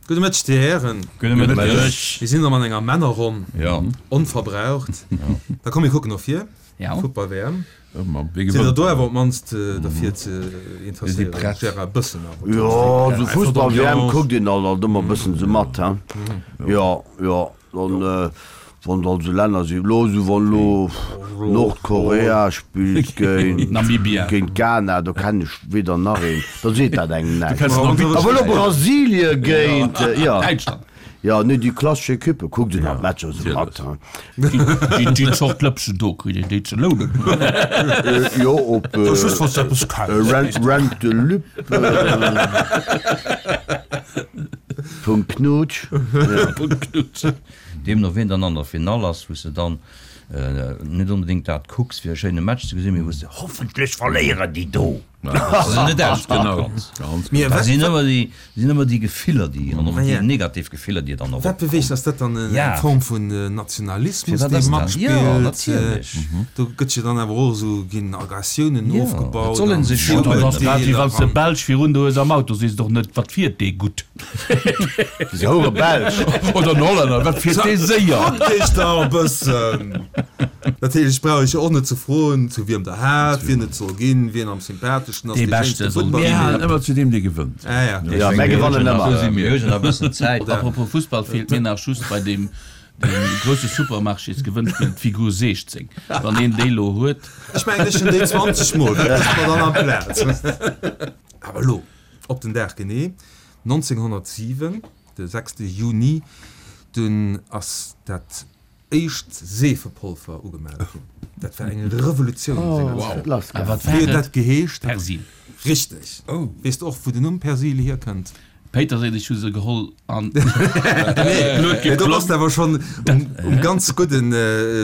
Gudde Mëtteg, Dir Hären. Gudde Mëtteg. Mir sinn erëm an enger Männerronn. Jo. Onverbraucht. Da komm, mir kucken no vir. Ja. Futtball-WM. Wie Sidd der gewënnt do dann? awer op d'mannst derfir ze interesséieren? prett. Gérard, e bëssen awer. Jo, esou Fussball-WM kuckt een alt alt ëmmer e bëssen esou mat, he. Jo, jo. Dann, wann et also Länner sinn, elo esou wann elo Nordkorea spillt géint Namibia. géint Ghana, do kennen ech weder nach een, da seet dat engem näischt. kenns Namibia. Awer elo Brasilie géint, jo, Däitschland. jo, nee, déi klassesch Equippe kuckt een halt d'Matcher esou mat, he. Déi déi Zort Lëpsen do kritt een déi ze lounen. Jo, op Just wann s de eppes kenns. Rent Rent de Lup. Punkt Knutsch. Punkt Knutsch. Deemno wien dann an der Finall ass, wou s de dann net onbedéngt dat kucks fir e schéine Match ze gesinn, mee wou s de hoffentlech verléieren déi do! Dass se net ausgekannt. Dat sinn ëmmer déi, sinn ëmmer déi Gefiller, déi an och déi negativ Gefiller, déi dann och Wat beweegt, ass dat dann eng Form vun Nationalismus, Firwat dee ass dat? matspillt? Jo, natierlech. Do gëtt jo dann awer och esou, ginn Aggressiounen Jo, ofgebaut et soll an een sech schon Dat ass grad wéi wann s de Virurteeler an. Belsch virun der hues am Auto, sees de och net, wat fiert dee gutt? Déi houre Belsch. Oder en Hollänner, wat fiert dee séier? Kuckt iech dach e bëssen! Natierlech brauch ech och net ze froen, zu wiem der hat, wien et soll ginn, wien am sympatheschsten ass, Dee dee Beschte schéinste soll Futtball Mir halen spillt. ëmmer zu deem, dee gewënnt. Ah ja. Ja, mär gewannen ëmmer. Esou si mir. Mir hu jo nach e bëssen Zäit. Apropos Fussball, feelt mir nach just bei deem grousse Supermarchésgewënnspill d'Figur 16. Wann een déi lo huet. Ech mengen, ech hunn déi 20 mol, dat ass mer dann amplaz. Awer elo, op den Dag genee, 1907, de 6 Juni, dunn ass dat éischt Seefepolver ugemellt ginn. Dat war eng Revolutioun senger Zäit. A wat Wéi war huet et? dat geheescht? Persil. Richteg. Weess de och, wou den Numm Persil hierkënnt? Péiterséil, ech hu se geholl an Nee, do bass de awer schonn um ganz gudde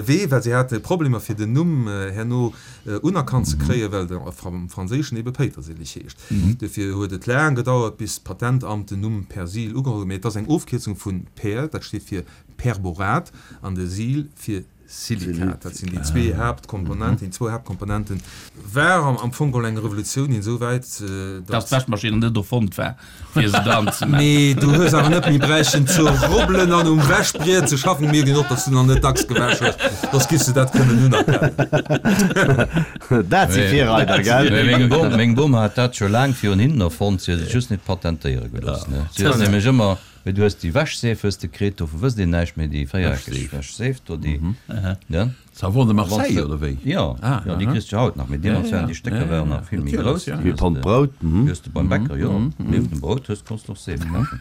Wee, well si hate Problemer fir den Numm herno unerkannt ze kréien, well de am Franséischen ebe Péitersilich heescht. Dofir huet et laang gedauert, bis d'Patentamt den Numm Persil ugeholl huet. Mee et ass eng Ofkierzung vu Per, dat steet fir Perborat, an de Sil fir Silikat. Dat sinn déi zwee Haaptkomponenten, déi zwou Haaptkomponenten. War am Fong geholl eng Revolutioun insouwäit, Dass datt. d'Wäschmaschinn net erfonnt war, fir se dran ze maachen. Mee du hues awer net méi bräichten ze rubbelen an um Wäschbriet ze schaffen. Mierkt een och, datt s du nach net dacks gewäsch hues, soss giffs de dat kënnen unerkennen. Dat si Virreider, gell? Meng Bom, meng Bom hat dat scho laang virun hinnen erfonnt, si huet et just net patentéiere gelooss. Si huet nämlech ëmmer Mee du hues déi Wäschseef hues de kritt, dovu wësst een näischt méi, déi véiereckeg Wäschseef do, déi, ne? Savon de Marseille, oder wéi? Jo, jo, déi kriss de jo haut nach, mee deemools waren déi Stécker waren nach vill méi grouss. Wéi e Pond Brout. Déi hues de beim Bäcker, jo, nieft dem Brout hues, konns de och Seef kafen.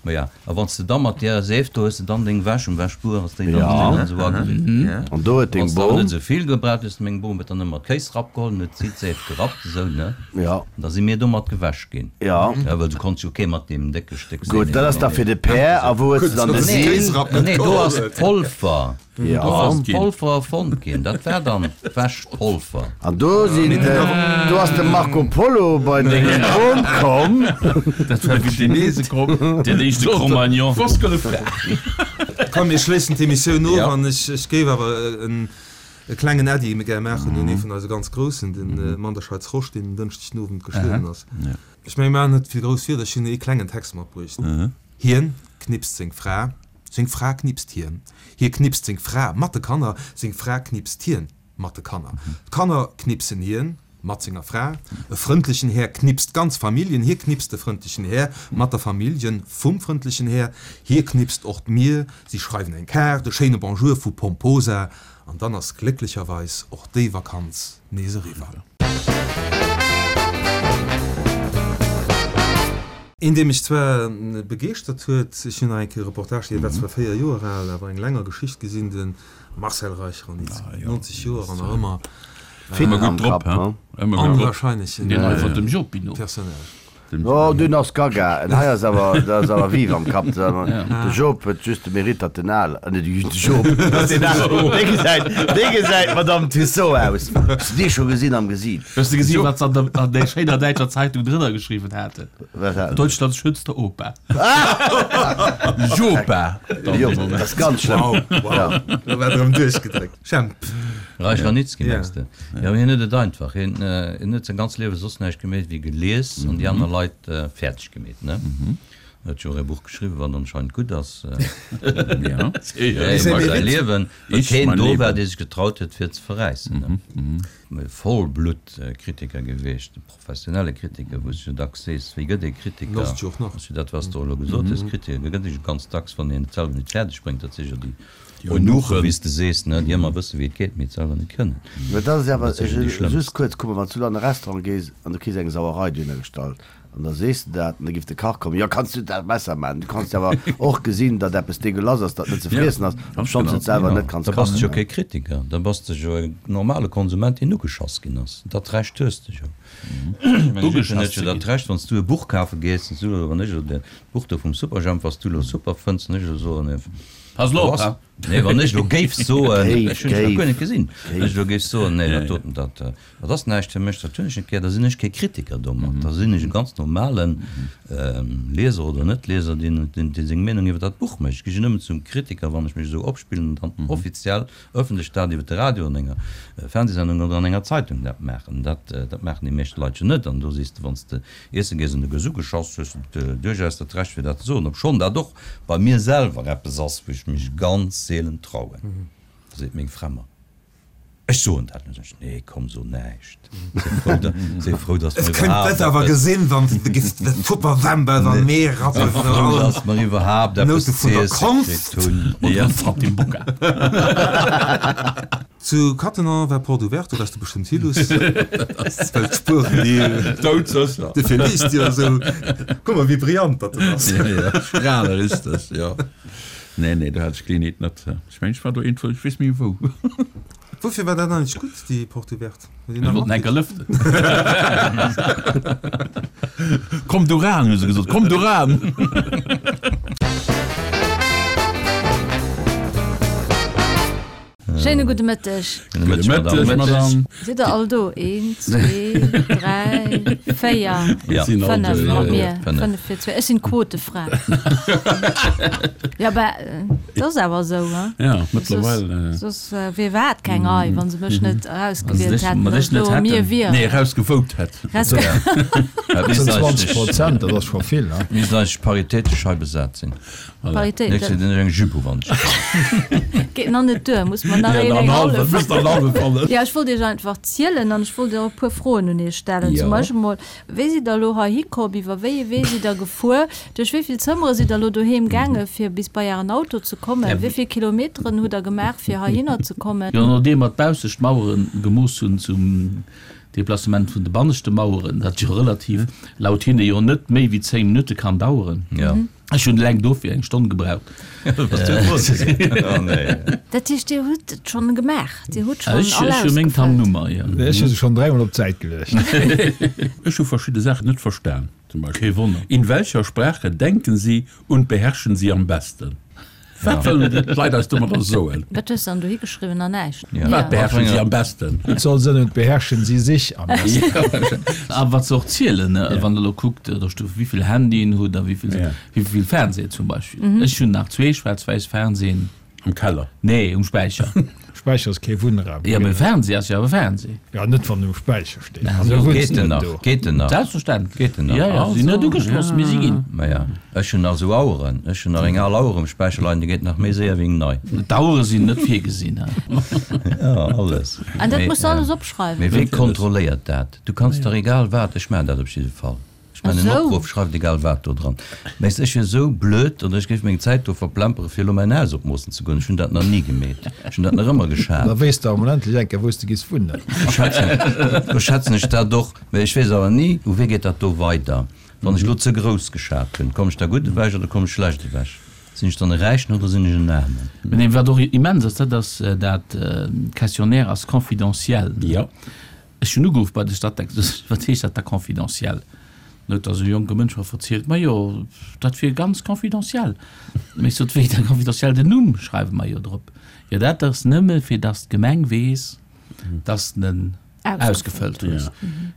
Maja, a wann s de da mat där Seef do hues de dann deng Wäsch um Wäschbuer, ass déi dann esou ageriwwen. An do huet deng Wann s de awer Bom. net esou vill gebraucht hues, meng Bom huet dann ëmmer d'Kéisrapp geholl an huet si d'Seef gerappt, esou, ne? Jo. An da si mir domat gewäsch ginn. Jo. Ja, well du konns jo kee mat deem décke Stéck Gutt, Seen dat ass da fir de Pär. A wou hues de dann de Sil? Nee, do ass d'Polver. Jo. Do ass d'Polver erfonnt ginn. Dat war dann d'Wäschpolver. An do sinn, do ass de Marco Polo bei deng Bom komm. Dat war wéi Chinese komm. Den éischte Cro-Magnon. Komm, mir schléissen d'Emissioun of an ech géif awer en E klengen Äddi gär maachen un ee vun eise ganz Groussen, de Manderscheids Rosch, deen en Dënschdeg den Owend gestuerwen ass. Ech mengen, mir maachen net vill grouss Wierder, ech hunn ee klengen Text matbruecht. Hien knipst seng Fra, seng Fra knipst hien, hie knipst seng Fra mat de Kanner, seng Fra knipst hien mat de Kanner, d'Kanner knipsen hien Mat senger Fra, e frëndlechen Här knipst d'ganz Familljen, hie knipst de frëndlechen Här mat der Familljen vum frëndlechen Här, hie knipst och d'Mier, si schreiwen eng Kaart, e schéine Bonjour vu Pomposa, an dann ass glécklecherweis och déi Vakanz nees eriwwer. Een dee mech zwar begeeschtert huet, ech hunn nach eng Kéier e Reportage, dee war zwar 4 Joer al, awer eng länger Geschicht gesinn, de Marcel Reich-Ranicki, 90 Joer an nach ëmmer Fit am Kapp, ne? Onwahrscheinlechen Deen hei vun dem Jopino. Personnage. Oh, deen ass gaga. En hei ass awer, dat ass awer vive am Kapp. De Job huet just de Mérite, datt en al, nee, de Job, datt en al, dee gesäit, dee gesäit Madame Tussaud aus. Hues de dee scho gesinn am Gesiit? Hues de gesinn, wat se an der, an där schéiner däitscher Zeitung drënner geschriwwen haten? Wat haten se? Deutschlands schönster Opa. Jopa! Jo, dat ass ganz schlëmm. Wow, wow, do war erëm duerchgedréckt. Jemp. Reich Ranitzky Ja. mengs de? Jo, mee hien huet et einfach. Hien huet säin ganzt Liewe soss näischt gemeet wéi gelies an déi aner Leit fäerdeg gemeet, ne? Huet jo och e Buch geschriwwen, wat anscheinend gutt ass. Iwwer säi Liewen, well keen do war, dee sech getraut huet, fir ze verräissen. Vollblutt-Kritiker gewiescht, e professionelle Kritiker, wou s du jo dacks sees, wéi gëtt ee Kritiker? Ass jo dat, wat s de och elo gesot hues, Kritiker gëtt ee jo ganz dacks, wann een et selwer net fäerdeg bréngt. Dat si jo déi Eunuchen, wéi s de sees, ne, déi ëmmer wësse wéi et geet, mee et selwer net kënnen. Mä dat ass awer, just kuerz, kuck mol, wann s du an e Restaurant gees an du kriss eng Sauerei dohinner gestallt, An da sees de dat, an da giff de Kach kommen, Jo, kanns du dat besser maachen? Du kanns jo awer och gesinn, datt eppes degueulass ass, dat net ze friessen ass, obschonns du et selwer net kanns Da bass de jo kachen. kee Kritiker, da bass de jo e normale Konsument, deen ugeschass ginn ass. Dat Recht hues de jo. Ech mengen, jiddwereen huet jo dat Recht, wann s du e Buch kafe gees, wann s du elo, wann ech elo dat Buch do vum Superjhemp, wat s du elo super fënns, wann ech elo soen, Pass elo op, ha! Nee, wann ech elo géif soen, ech hunn et nach guer net gesinn, wann ech elo géif soen, nee, dat doten, dat, dat ass näischt fir mech, dat hunn ech net gär, da sinn ech kee Kritiker domat, da sinn ech e ganz normale Lieser oder Net-Lieser, deen, deen seng Meenung iwwer dat Buch mécht. Ech gi jo nëmmen zum Kritiker, wann ech mech esou opspillen an dann offiziell, ëffentlech dat iwwer de Radio, an enger Fernsehsendung oder an enger Zeitung dat maachen. Dat, dat maachen déi meescht Leit jo net. An do sees de, wann s de iesse gees an du gëss ugeschoss, hues de duerchaus dat Recht fir dat ze soen, obschonn dat och bei mir selwer eppes ass, wou ech mech ganz seelen trauen. Da seet meng Fra mer, Ech soen dat net. Ech, Nee, komm, so näischt. Séi frou, da, séi frou, dass mer iwwerhaapt eppes. awer gesinn, wann s de giffs de Tupperwember an Mee rappen. Séi frou, dass mer iwwerhaapt eppes Noute vun der z'iesse Konst. kritt hunn. Oder Saltimbocca. Zu Cattenom war Porte ouverte, do wars de bestëmmt hi, Luss. Well d'Spueren, déi. Doudsécher. Dofir liest Dir esou. Kuck mol, wéi brillant datt en ass. Ja, ja, strale richteg, jo. Nee, nee, do hat ech d'Geleeënheet net. Ech mengen, ech war do iergendwou, ech weess méi wou. Woufir war dat eigentlech gutt, déi Porte ouverte? Huet een Ech nach wollten enker matkritt? lëften. Komm du ran, hu se gesot, komm du ran! Schéine gudde Mëtteg. Gudde Mëtteg, Madame. Sidd der all do? Een, zwee, dräi, véier, fënnef mat mir. Fënnef fir zwee. Ech sinn d'Quotefra. Jo, bah, et ass awer esou, hein? Ja, mëttlerweil. Soss wier iwwerhaapt keng Rei, wa se mech net erausgewielt hätten, datt elo mir wieren. Nee, erausgevote hätt. Dat sinn 20 Prozent, dat ass scho vill, hein? Misst eigentlech paritätesch hei besat sinn. Paritéit. Nächst Joer den ech eng Jupe u wann ech kann. Geet nach net duer, muss mer nach een eng hallef. Jo, ech wollt iech einfach zielen an ech wollt och e puer Froen un iech stellen. Zum Beispill mol, Wéi sidd der elo heihi komm? Iwwer wéi ee Wee sidd der gefuer? Duerch wéi vill Zëmmere sidd der elo doheem gaange fir bis bei ären Auto ze kommen? Wéi vill Kilometeren hutt der gemaach fir heihinner ze kommen? Jo, nodeem mer d'baussescht Mauere gemooss hunn zum Deplacement vun de banneschte Maueren, dat jo relativ, laut hinne jo net méi wéi 10 Minutte kann daueren. Ech hunn eleng dofir eng Stonn gebraucht. Dat heescht, Dir hutt et schonn gemaach? Dir hutt schonn all Ech hu meng ausgefëllt? Tammnummer, jo. Ech hu se schonn dräimol op d'Säit geluecht. Ech hu verschidde Saachen net verstan. Zum Beispill, Kee Wonner. In welcher Sprache denken Sie und beherrschen Sie am besten? Wat wëllen d'Leit eis domadder soen? Wat hues de dann dohi geschriwwen? Nach näischt? Wat beherrschen si am besten? Et soll sënn und beherrschen sie sich am besten. A wat se och zielen, wann der elo kuckt, da stu wéivill Handyen hutt a wéivill, wéivill Fernsehen zum Beispill. Ech hunn nach zwee schwaarz-wäiss Fernsehen. Am Keller? Nee, um Späicher. Späicher ass kee Wunnraum. Jo, mee Fernseh ass jo awer Fernseh. Jo, net wann en um Späicher steet. An du wunns Geet en net nach? do. Geet en nach? Selbstverständlech. Geet en nach? Jo, jo, si sinn net ugeschloss, mee si ginn. Maja, ech hunn nach esou Aueren. Ech hunn nach eng al Auer um Späicher leien, déi geet nach méi séier wéi eng nei. D'Auere sinn net virgesinn, he. Jo, alles. An dat muss de alles opschreiwen? Mee wee kontrolléiert dat? Du kanns dach egal wat, ech maachen dat op jidde Fall. Ech mengen en Opruff, schreift egal wat do dran. Mä ech wier esou blöd oder ech géif meng Zäit do verplempere fir elo mäin Haus opmoossen ze goen. Ech hunn dat nach ni gemeet. Ech hunn dat nach ëmmer geschat. Da wéisst de emol endlech eng Kéier wou s de giss wunnen. Do schätzen ech dat och. Mä ech weess awer ni, u wee geet dat do weider. Wann ech elo ze grouss geschat hunn, komm ech da gutt ewech oder komm ech schlecht ewech? Sinn ech dann e Räichen oder sinn ech en Aarmen? Mä wat och immens ass, dat ass dat Questionnaire ass confidentiel. Ech hunn ugeruff bei de Statec, wat heescht dat da confidentiel? Dann huet da esou e jonke Mënsch mer verzielt, majo, dat wier ganz confidentiel. Mä ech sot, wéi da confidentiel, den Numm schreiwe mer jo drop. Jo, dat ass nëmme fir datt d'Gemeng weess, datt s de en ausgefëllt hues.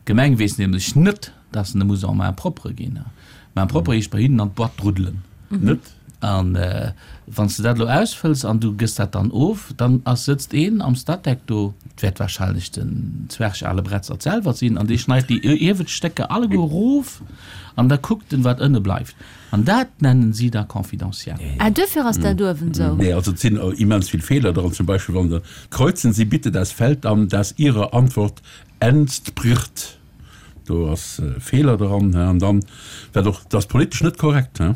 D'Gemeng weess nämlech net, datt en e muss en main propre ginn. Main propre heescht bei hinnen an d'Boîte druddelen. Net? An wann s de dat elo ausfëlls an du gëss dat dann of, dann ass, sëtzt een am Statec do, et wäert wahrscheinlech den Zwerg Ale Bretzert selwer sinn, an dee schneit déi iewescht Stécker alleguer erof an da kuckt en, wat ënne bleift. An dat nennen si da confidentiel. Ah, duerfir ass dat uewen esou. Nee, also et sinn immens vill Feeler dran. Zum Beispill wann der, Kreuzen Sie bitte das Feld an, das Ihrer Antwort entspricht. Do ass e Feeler dran. An dann, wat och, dat ass politesch net korrekt, do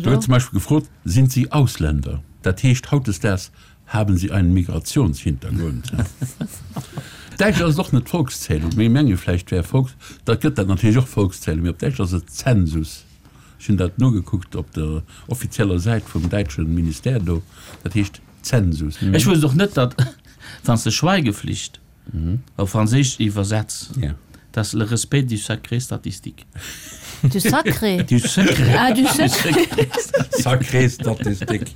gëtt zum Beispill gefrot, Sind Sie Ausländer? Dat heescht hautdesdaags, Haben Sie einen Migrationshintergrund? Däitsch ass et och net Volkszählung, mee menge vläicht wär Volks, da gëtt dat natierlech och Volkszählung, mee op Däitsch ass et Zensus. Ech hunn dat nogekuckt op der offizieller Säit vum däitsche Ministère do, dat heescht Zensus. Ech wousst och net, datt, wann s de Schweigeflicht op Franséisch iwwersetz, dass le respect du sacré statistique. Du sacré? Du secret. Ah, du secret. Sacré statistique.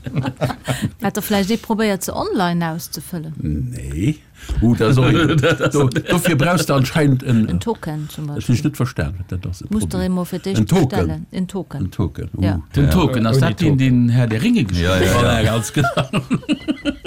Hat der vläicht ee probéiert, se online auszefëllen? Nee. Uh, dat ass och een. Do, dofir brauchs de anscheinend en. En Token zum Dat hunn ech net verstan, wat dat ass. Muss der emol fir d'éischt En Token. bestellen. En Token. En Token, uh. Ja. Den Token, ass Ouni dat deen, Token. deen Herr der Ringe Ja, gespillt ja, huet? ja. Voilà, ganz genau.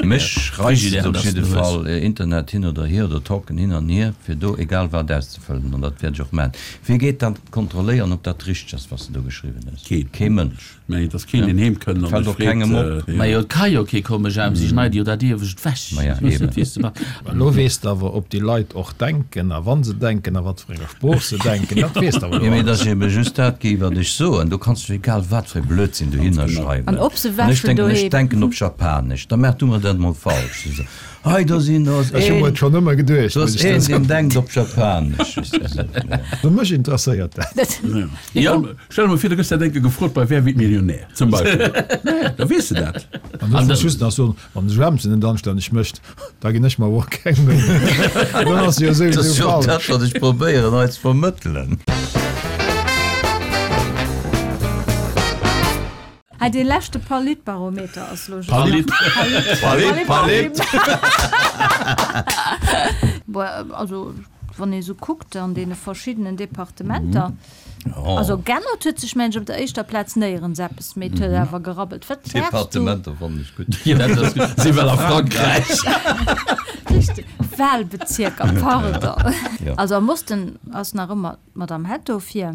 Mech reizt et Frigidaire, op dass jidde du hues. Fall, Internet hin oder hier oder Token hin an hier, fir do egal wat auszefëllen, an dat wäert ech och maachen. Wie geet dann kontrolléieren, ob dat richteg ass, wat s de do geschriwwen hues? Keen. Kee Mënsch. Mä et ass keen, deen heem kënnt an Fällt sech och kengem freet, op. jo. Majo, et ka jo kee kommen, Jemp, si schneide jo dat Iewescht ewech. Maja, Ech weess net, eben. wéi s de machs. Mä elo weess de awer, ob déi Leit och denken a wa se denken a wat fir enger Sprooch se denken, dat weess de awer Jo, elo mee et alles. ass ebe just dat gi, wat ech soen. Do kanns du egal wat fir e Blödsinn dohinner schreiwen. An ob se An ech wäschen denken, ech doheem. denken op Japanesch, da maach du mer dat emol falsch. Hei, do sinn, do ass Ech hu mer een, et schonn ëmmer geduecht, do muss ass ech dir een, deen soen. denkt op Japanesch. Also mech interesséiert dat. Jo, stell der mol vir, du gëss dat eng Kéier gefrot bei Wer wird Millionär? zum Beispill. Da weess de dat. An ech muss just nach soen, wann de Joemsen net anstänneg mécht, da ginn ech mer awer och keng Méi. Dann ass jo Dat ass souwisou jo dat, falsch. wat ech probéieren hei ze vermëttelen. Hei dee leschte Politbarometer ass lo just Palit. Palit, Palit, Palit. Bon, also wann ee sou kuckt an deene verschiddenen Departementer, also g'ännert huet sech mengen ech op der éischter Plaz néierens eppes, mee et huet awer gerabbelt. Wat waars du? Departementer fannen ech gutt. Jo, dat ass gutt. Si well a Frankräich. Richteg, Wahlbezierker, pardon. Jo. Also am Osten ass nach ëmmer D'Madame Hetto vir,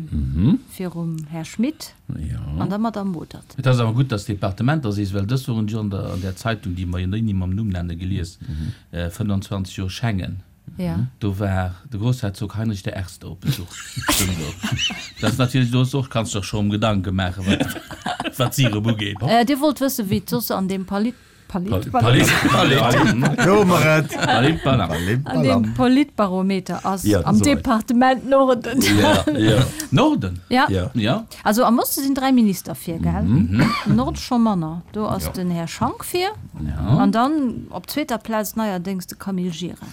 virum Här Schmit an der Madame Modert. Et ass awer gutt, dass d'Departementer sees, well dës Woch hunn ech an der an där Zeitung, déi mer jo ni mam Numm nenne, gelies, 25 Joer Schengen, do war de Groussherzog Heinrich der Erste op Besuch. Dat ass natierlech, do och, kanns de der scho erëm Gedanke maachen, wat wat si erëm ugeet. Dir wollt wëssen, wéi et soss an deem Palit Palit. Palit. Do hu mer et. Palit Palam. An deem Politbarometer ass am Departement Norden. Norden? Ja. Ja. Also am Oste sinn 3 Minister vir, gell? Am Norde scho manner. Do ass den Här Schank vir. An dann op zweeter Plaz neierdéngs de Camille Gira.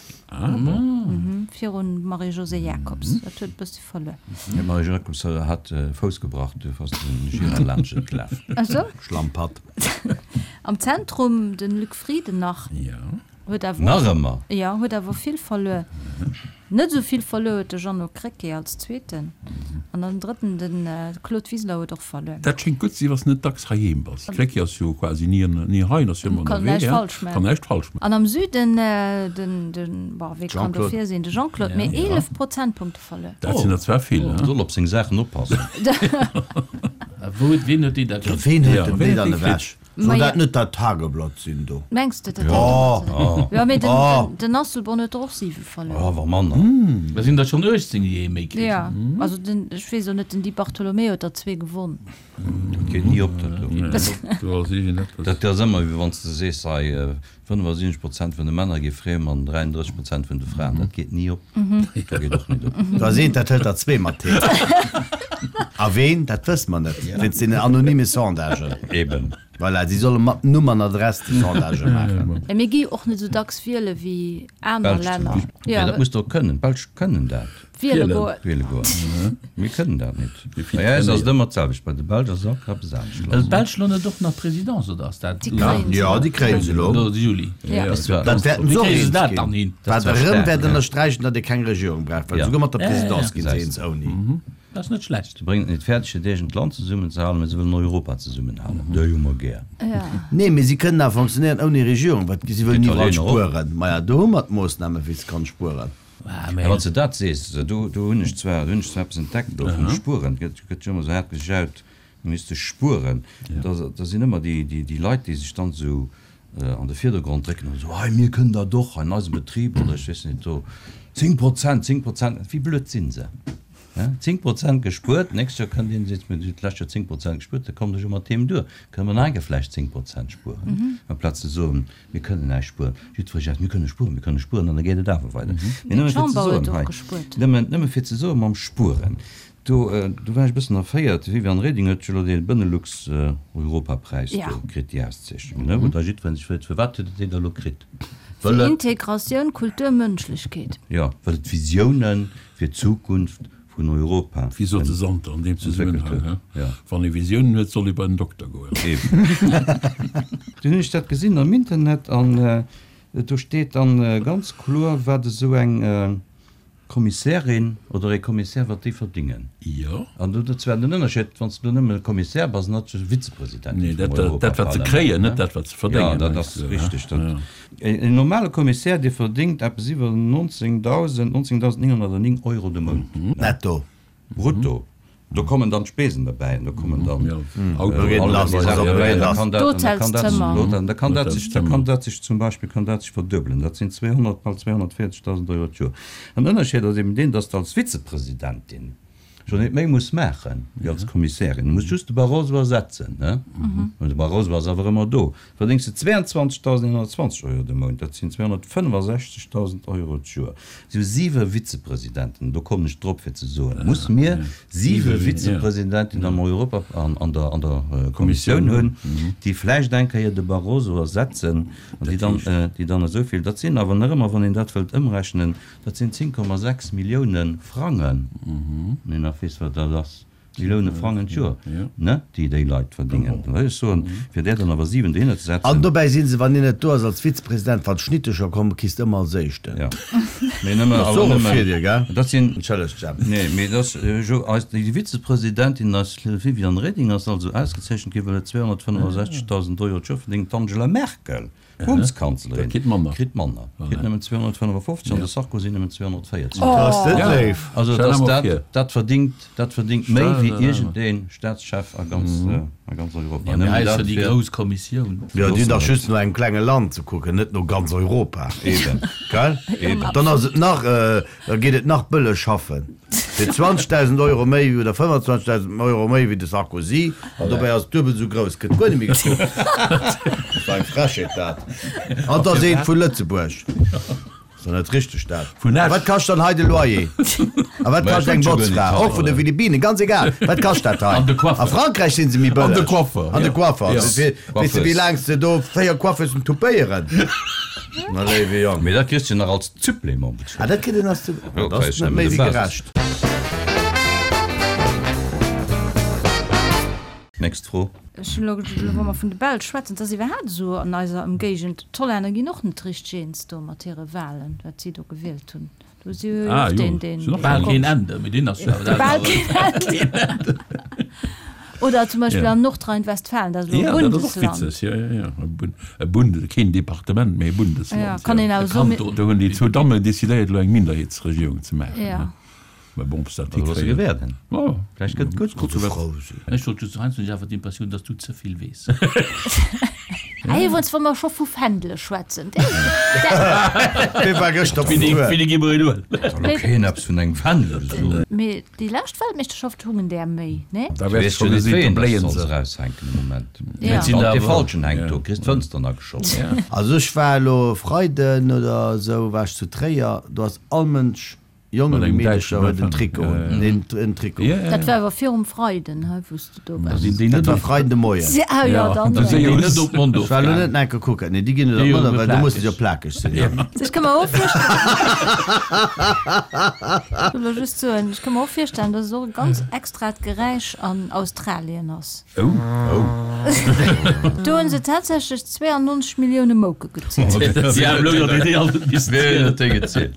Virun Marie-Josée Jacobs. Dat huet e bëssi verluer. D'Marie-Josée Jacobs hat Fouss gebrach, duerfir ass de Gira laanscht et gelaf. Ach sou? Schlammpatt. Am Zentrum den Luc Frieden nach. Huet awer Nach ëmmer? Jo, huet awer vill verluer. Net esou vill verluer huet de Jeannot Krecké als Zweeten. An den Drëtten, de Claude Wiseler huet och verluer. Dat schéngt gutt ze sinn, wann s de net dacks heiheem bass. Krecké ass jo quasi ni ni hei, en ass jo ëmmer Kann ënnerwee. näischt falsch maachen. Kann näischt falsch maachen. An am Süden, den, den, bon, wee kann Jean-Claude. dofir sinn? De Jean-Claude, mee 11 Prozentpunkte verluer. Dat sinn der zwar vill, he? Soll op seng Saachen oppassen. Wou huet, ween huet déi da Jo, kritt? ween huet Ja, denn ween déi huet dann déi kritt? ewech? Soll dat net dat Tageblatt sinn do? Mengs de dat? Oh! Jo, mee den, Oh! den Asselborn huet der och 7 verluer. Oh, awer manner. Da sinn der schonn 18, déi ee méi kritt. Ja, also den, ech weess och net, den Di Bartolomeo huet der zwee gewonn. Dat geet ni op, dat do. Do ass iergendeppes. Dat ass ëmmer, wéi wann s de sees, hei, 75 Prozent vun de Männer gi friem an 33 Prozent vun de Fraen. Dat geet ni op. Dat geet och net op. Do ass eent, dat hëlt der zwee mat heem. A ween, dat wësse mer net, wéinst deenen anonyme Sondagen. Eben. Voilà, si solle mat Numm an Adress déi Sondagë maachen. Mä mir gi jo och net esou dacks wiele wéi aner D'Belsch zum Länner. Beispill. Mä dat muss de och kënnen. D'Belsch kënnen dat. Wiele goen. Wiele goen. Mir kënnen dat net. Bei eis ass et ëmmer d'selwecht. Bei de Belsch ass et all Kéier eppes anescht Well lass. d'Belsch lo net och nach Présidence, oder ass dat Déi kréien se Jo, elo. déi kréien se elo. Lo de Juli? Ja. Ass zwar- Dat wäerten Wéi se och kréie se eens dat ginn. dann hin? Wat zwar erëm staark, wäert ja. ënnersträichen, datt ee keng Regierung brauch, well Ja. souguer mat der Ja, ja, Présidence ja. gi se eens ouni. Dat ass net schlecht. Se bréngen et net fäerdeg, hiert eegent Land zesummenzehalen, mä se wëllen Europa zesummenhalen. Déi hu mer gär. Nee, mee si kënnen awer fonctionnéieren ouni Regierung, well si wëllen iwwerall spueren. Maja, do hu mer d'Moossnamen, wéi se kann spueren. Mä wann s de dat sees, do hunn ech zwar, do hunn ech zwar eppes entdeckt elo vum Spueren. Et gëtt jo ëmmer esou haart gejaut, mir misste spueren. Da sinn ëmmer déi Leit, déi sech dann esou an de Virdergrond drécken an esou, hei mir kënnen dat och hei in eisem Betrib oder ech weess net do 10 Prozent, 10 Prozent, wéi blöd si se, he, 10 Prozent gespuert, d'nächst Joer kënnt een a seet, mir hunn d'lescht Joer 10 Prozent gespuert, da kommen ech jo mat deem duer, kënne mer nach eng Kéier vläicht 10 Prozent spueren, amplaz ze soen, mir kënnen näischt spueren. Jiddweree seet, mir kënne spueren, mir kënne spueren an da geet et awer weider. Mee nëmme fir ze soen hei, nëmmen, nëmme fir ze soen mam Spueren, Do, do war ech e bëssen erféiert. D'Viviane Reding huet jo elo dee Benelux-Europapräis do kritt, déi Auszeechnung, ne, wou da jiddweree sech freet, Firwat huet et déi da elo kritt? Fir Integratioun, Kultur, Mënschlechkeet. Jo, well et Visioune fir d'Zukunft vun Europa Wéi sot de Santer an deem entwéckelt Zesummenhang, huet. he? Wann ee Visiounen huet, soll ee bei den Dokter goen. Eben. Dunn hunn ech dat gesinn am Internet an do steet dann ganz kloer, wat esou eng Kommissärin oder ee Kommissär, wat déi verdingen. Jo. An do dat zwar den Ënnerscheed, wann s de do nëmme Kommissär bass, an net Vizepresidentin Nee, vum dat, dat wat se Europaparlament, kréien, ne? net dat wat se verdéngen, Jo, dat mengs ass de, richteg. ne? Dat, Ja. een normale Kommissär, dee verdéngt eppes iwwer 19.000, 19.909 Euro de Mount. Netto. Brutto. Do kommen dann d'Spesen derbäi an do kommen dann D'Hotelszëmmer. Da kann dat sech, da kann dat sech zum Beispill kann dat sech verduebelen. Dat sinn 200, bal 240.000 Euro d'Joer. An den Ënnerscheed ass eben deen, dass de als Vizepresidentin scho net méi muss maache wéi als Kommissärin. Du muss just de Barroso ersetzen, ne? Mä de Barroso ass awer ëmmer do. Verdéngs de 22.120 Euro de Mount, dat sinn 265.000 Euro d'Joer. Si hu siwe Vizepresidenten, do kommen ech drop fir ze soen, muss mir siwe Vizepresidenten am Europa, an der, an der Kommissioun hunn, déi vläicht eng Kéier de Barroso ersetzen an déi dann, déi dann esou vill, dat sinn awer nach ëmmer, wann een dat wëllt ëmrechnen, dat sinn 10,6 Millioune Frangen, wann een nach weess, wat dat ass. Millioune Frangen d'Joer, ne, déi déi Leit verdingen. Da wëll ech soen, fir där dann awer 7 dohinner ze setzen. An dobäi si se, wann hien net do ass als Vizepresident, wann d'Schnittecher kommen, kriss de ëmmer als Éischten. Jo, mee nëmme, Dat ass awer och e nëmme, Virdeel, gell? dat sinn. Entschëllegt, Jemp. Nee, mee dat ass jo eis, déi Vizepresidentin, eis Viviane Reding ass also ausgezeechent ginn, well et 265.000 Euro d'Joer verdéngt. D'Angela Merkel D'Bundeskanzlerin kritt manner, kritt manner, kritt nëmmen 255 an de Sarkozy nëmmen 240. Ass dat léif! Also dass dat, dat verdingt, dat verdingt méi wéi iergendee Staatschef a ganz, a ganz Europa. Ja, mee hei ass jo déi grouss Kommissioun. Jo, déi hunn dach just no engem klenge Land ze kucken, net no ganz Europa. Eben. Gell? Eben. Dann ass et nach, da geet et nach bëlleg schaffen. Fir 20.000 Euro méi oder 25.000 Euro méi wéi de Sarkozy, an dobäi ass et duebel esou grouss, gëtt guer net méi gekuckt. Dat war eng Frechheet dat. An et ass eent vu Lëtzebuerg. Ass doch net richteg dat. Vun A Esch. wat kascht dann hei de Loyer? A wat kascht eng Botzfra? Och vun de Philippinen, ganz egal. Wat kascht dat hei? An de Coiffeur. A Frankräich si se méi bëlleg. An de Coiffeur, An de ja. Coiffeur. Ja. Weess de wéi laang s de do 4 Coiffeusen toupéieren? Na léiwe Jong. Mee dat kriss de nach als Supplément bezuelt. Ah, dat kritt een als Supplément. Dat ass net méi wéi gerecht. Nächst Fro. Ech hunn elo, wa mer vun de Belsch schwätzen, et ass iwwerhaapt esou an eiser Ëmgéigend, d'Hollänner ginn och net richteg eens do mat hire Wahlen, wat si do gewielt hunn. Do si jo Ah, och jo. deen, deen. Sinn och Bal keen Ende, mee deen ass jo awer Bal keen Ende. Oder zum Beispill Ja. an Nordrhein-Westfalen, dat ass elo e Ja, dat ass och Bundesland. witzeg, jo, jo, jo. E Bun-, e Bund-, keen Departement, mee e Bundesland, Ja, kann een jo. awer soen, Kanton. Do hunn déi zwou Dammen decidéiert, elo eng Minderheetsregierung ze maachen, Ja. ne? Mä bon, ob se dat Also loosse hikréien. gewäerden. Jo. Vläicht gëtt et gutt. Kucke wat. Ech wollt just, heiansdo hunn ech awer d'Impressioun, dass du ze vill weess. Ah, iwwerens, wa mer scho vu Fändele schwätzen, Dee war gëschter op Tour. Wéini gi mer een huelen? Soll elo keen eppes vun engem Fändel soen. Mee déi lescht Weltmeeschterschaft hungen där méi, nee? Da Du wäers weess scho jo net, gesinn, wéi do een bléien das se. solls eraushänken de Moment. Ja. Sinn Wann der dee awer- Falschen hänkt do, kriss d'Fënster ageschoss. Also ech war elo e Freiden oder esou war ech zu Tréier, do ass all Mënsch, Jongen Mat wéi engem Meedercher däitschen huet en Fändel. Trikot Ja, un, ja. neen, en Trikot. Ja, ja, Dat ja. war awer virum Freiden, hei, wou s de do Da waars. sinn déi Dat net war op, Freiden de Moien. Ah jo, Ja, dann. da sinn si déi jo net op d'Mond Ech war elo ofgaangen. net enke kucken. Nee, déi ginn net op Déi d'Mond, jo well do musse se jo plakeg. plakeg sinn, ja. Ech ka mer och virstellen, ech wëll just soen, ech ka mer och virstellen, dass et och e ganz extrat Geräisch an Australien ass. Oh. Do hunn se tatsächlech 92 Millioune Mouke gezielt. Si haben elo jo déi all net missen Wien zielen. huet déi gezielt?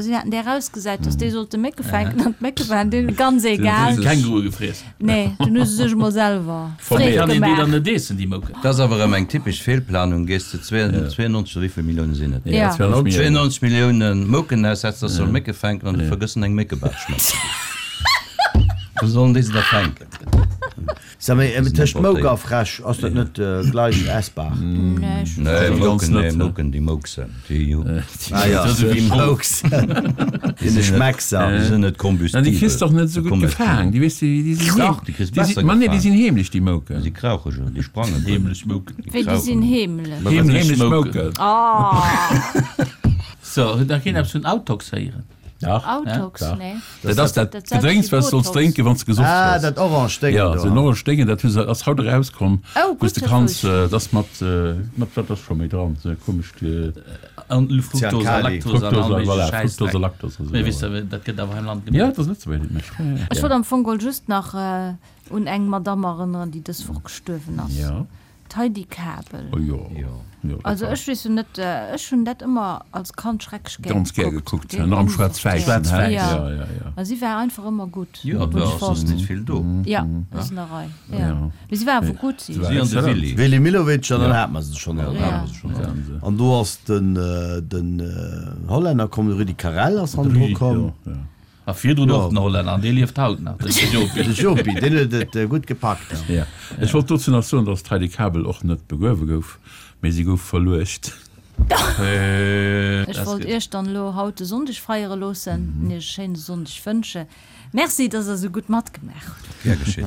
Si haten déi erausgesat, datt déi sollte Mécke fänken an d'Mécke waren deene ganz egal. Kängurue gefriess. Nee, dunn hu se sech emol selwer Freed Kann een déi dann net eessen, déi Mouken? Dat ass awer erëm eng typesch Feelplanung. Gees de 92, oder wéivill Millioune sinn et? Ja. 92 Millioune Mouken aussetz, dass se solle Mécke fänken an du vergëss en eng Méckebaatsch matzeginn. Wou sollen déi se da fänken? Sag mol, tëscht Mouk a Fräsch, ass dat net gleich essbar? Nee, ech Nee, Mouken, nee, Mouken, déi mouksen. Déi hu. Ah jo, déi mouksen. Déi sinn Schmeckser. Déi sinn net kombustibel. Déi kriss de och net esou gutt gefaang. Déi weess de, déi sinn Dach, déi kriss besser gefaang. Ma nee, déi sinn heemlech, déi Mouken. Déi krauche jo, déi sprangen. Heemlech Mouken. Wéi, déi sinn heemlech? Heemlech Mouken. Oh! So, huet nach keen eppes vun Autox héieren? Dach. Autox, nee. Dat ass dat Gedrénks, wat s de solls drénken, wann s de gesoff hues. Ah, dat orange Déngen do. Jo, esou en orange Déngen, dat hu se, ass haut erauskomm, Oh, wou s gutt, de dat kanns, wosst ech. dat ass mat, mat wat ass scho méi dran, esou e komescht. An Fructose a Zyankali. Lactose an all Fructose, méigleche voilà, Schäissdreck. Fructose a Lactose a sou, Mee ja. weess de, dat gëtt awer hei am Land Ja, gemaach. et ass Lëtzebuerger, déi et mécht, ja, ja. Ech wollt am Fong geholl just nach un eng Madamm erënneren, déi dës Woch gestuerwen ass. Ja. D'Heidi Kabel. Oh jo, jo, dat Also war. ech weess jo net, ech hunn dat ëmmer als Kand schrecklech gär Ganz gär gekuckt. gekuckt, nach am Schwaarz-Wäissen, hä? Schwaarz-Wäiss. Ja, ja, ja. A si war einfach ëmmer gutt. Jo, et hunn war ech och soss fonnt. net vill do. Ja, ass an der Rei, ja. Ja. Mee si war awer gutt, si. Si an de Willy. Willy Millowitsch an dann hat mer se schonn all. Ja, hat mer se schonn all. An do ass den, den Hollänner komm, de Rudi Carrell ass hannendru komm. Jo, jo. A virdrun Jo. och den Hollänner, an dee lieft haut nach, den Jopi. De Jopi, deen huet et gutt gepackt. Ja. Ech wollt dozou nach soen, datt d'Heidi Kabel och net begruewe gouf, mee si gouf verluecht. Ech wollt Iech dann elo haut de Sonndeg feiere loossen an Iech e schéine Sonndeg wënsche. Merci, dass Der esou gutt matgemaach hutt. Gär geschétt.